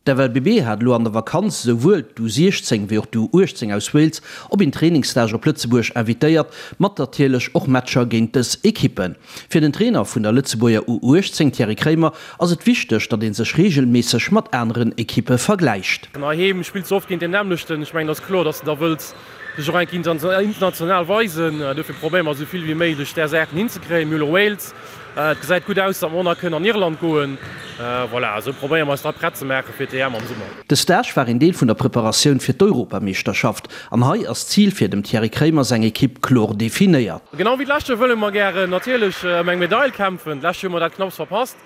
D'FLBB hat elo an der Vakanz esouwuel d'U 16 wéi och d'U 18 aus Wales op een Trainingsstage op Lëtzebuerg invitéiert, mat natierlech och Matcher géint dës Ekippen. Fir den Trainer vun der Lëtzebuerger U 18, Thierry Kraemer, ass et wichteg, datt ee sech reegelméisseg mat aneren Ekippe vergläicht. Heiheem spills de oft géint deen nämmlechten. Ech mengen, et ass kloer, datt s de da wëlls dech och eng Kéier international weisen. Dofir probéiere mer esou vill wéi méiglech där Saachen hinzekréien. Mir hu lo Wales. Et gesäit gutt aus, datt mer och nach kënnen an Irland goen. Voilà, esou probéiere mer eis da prett ze maache fir d'EM am Summer. De Stage war een Deel vun der Preparatioun fir d'Europameeschterschaft an hei ass d'Zil fir dem Thierry Kraemer seng Ekipp kloer definéiert. Genau wéi d'lescht Joer wëlle mer gären natierlech ëm eng Medail kämpfen. D'lescht Joer hu mer dat knapps verpasst.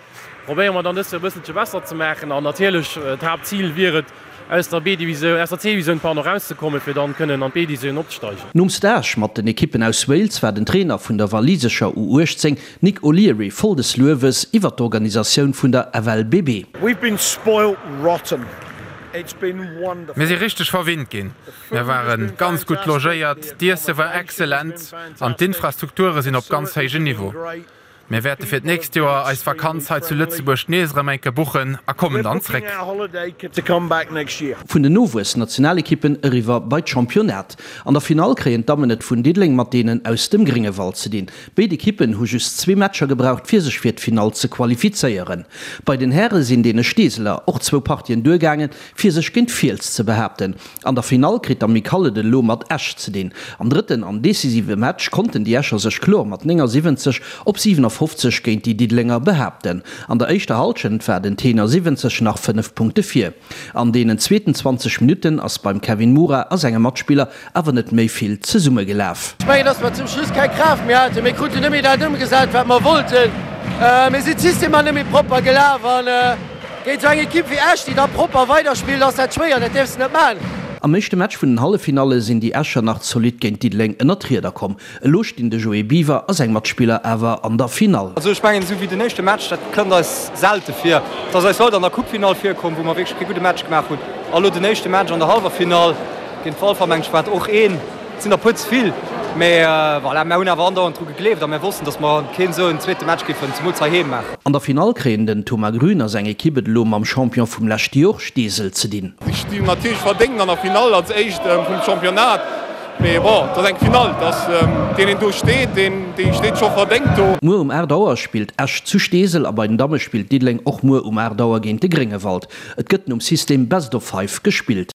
Probéiere mer dann dëst Joer e bësselche besser ze maachen an natierlech d'Haaptzil wier et, aus der B-Divisioun, aus der C-Divisioun, pardon, erauszekommen, fir dann kënnen an d'B-Divisioun opzesteigen. Nom Stage mat den Ekippen aus Wales war den Trainer vun der walisescher U18, Nick O'Leary, voll des Luewes iwwer d'Organisatioun vun der FLBB. We've been spoilt rotten. It's been wonderful. Mir si richteg verwinnt ginn. Mir ware ganz gutt logéiert, d'Iesse war excellent an d'Infrastrukture sinn op ganz héijem Niveau. Mir wäerte fir d'nächst Joer eis Vakanz hei zu Lëtzebuerg nees erëm eng Kéier buchen a kommen dann zréck. Vun den Nowuess-Nationalekippen eriwwer bei d'Championnat. An der Finall kréien d'Dammen et vun Diddeleng mat deenen aus dem Gréngewald ze dinn. Béid Ekippen hu just zwee Matcher gebraucht fir sech fir d'Finall ze qualifizéieren. Bei den Häre sinn deene Steeseler och zwou Partien duergaangen fir sech géint Fiels ze behaapten. An der Finall kritt d'Amicale et elo mat Esch ze dinn. Am drëtten an decisive Match konnten déi Escher sech kloer mat 79 op 57 géint déi Diddelenger behaapten. An der éischter Hallschent war den Tenor 70 nach 5 Punkte vir. An deenen zweeten 20 Minutten ass beim Kevin Mura a senge Matspiller awer net méi vill zesummegelaf. Ech mengen, dass mer zum Schluss keng Kraaft méi haten. Mir kruten net méi dat ëmgesat, wat mer wollten. Mir sinn d'Systemer net méi propper gelaf an Géint esou eng Ekipp wéi Esch, déi da propper weiderspillt, ass dat schwéier. Dat däerfs de net maachen. Am éischte Match vun den Halleffinalle sinn déi Escher nach zolidd géint Diddeleng ënnert d'Rieder komm. Elo stinn de Joé Biwer a seng Matspiller awer an der Finall. Also ech mengen, esou wéi den éischte Match, dat kënnt eis selte vir. Et ass eis haut an der Coupefinall virkomm, wou mer wierklech kee gudde Match gemaach hunn. A lo den éischte Match an der Hallwerfinall géint Walfer, meng ech, war et och een. Et sinn der puer ze vill, mä voilà, mär hunn awer andauernd dru gegleeft a mär wossten, datt mer keen esou en zweete Match géifen, zemools heiheem, maachen. An der Finall kréien den Thomas Grün a seng Ekipp et elo mam Champion vum leschte Jor, Steesel, ze dinn. Si stinn natierlech verdéngt an der Finall als éischt vum Championnat, mee bon, et ass eng Finall, et ass deen een do steet, deen dee steet scho verdéngt do. Muer um 8 Auer spillt Esch zu Steesel a bei den Damme spillt Diddeleng och muer um 8 Auer géint de Gréngewald. Et gëtt nom System Best of Five gespillt.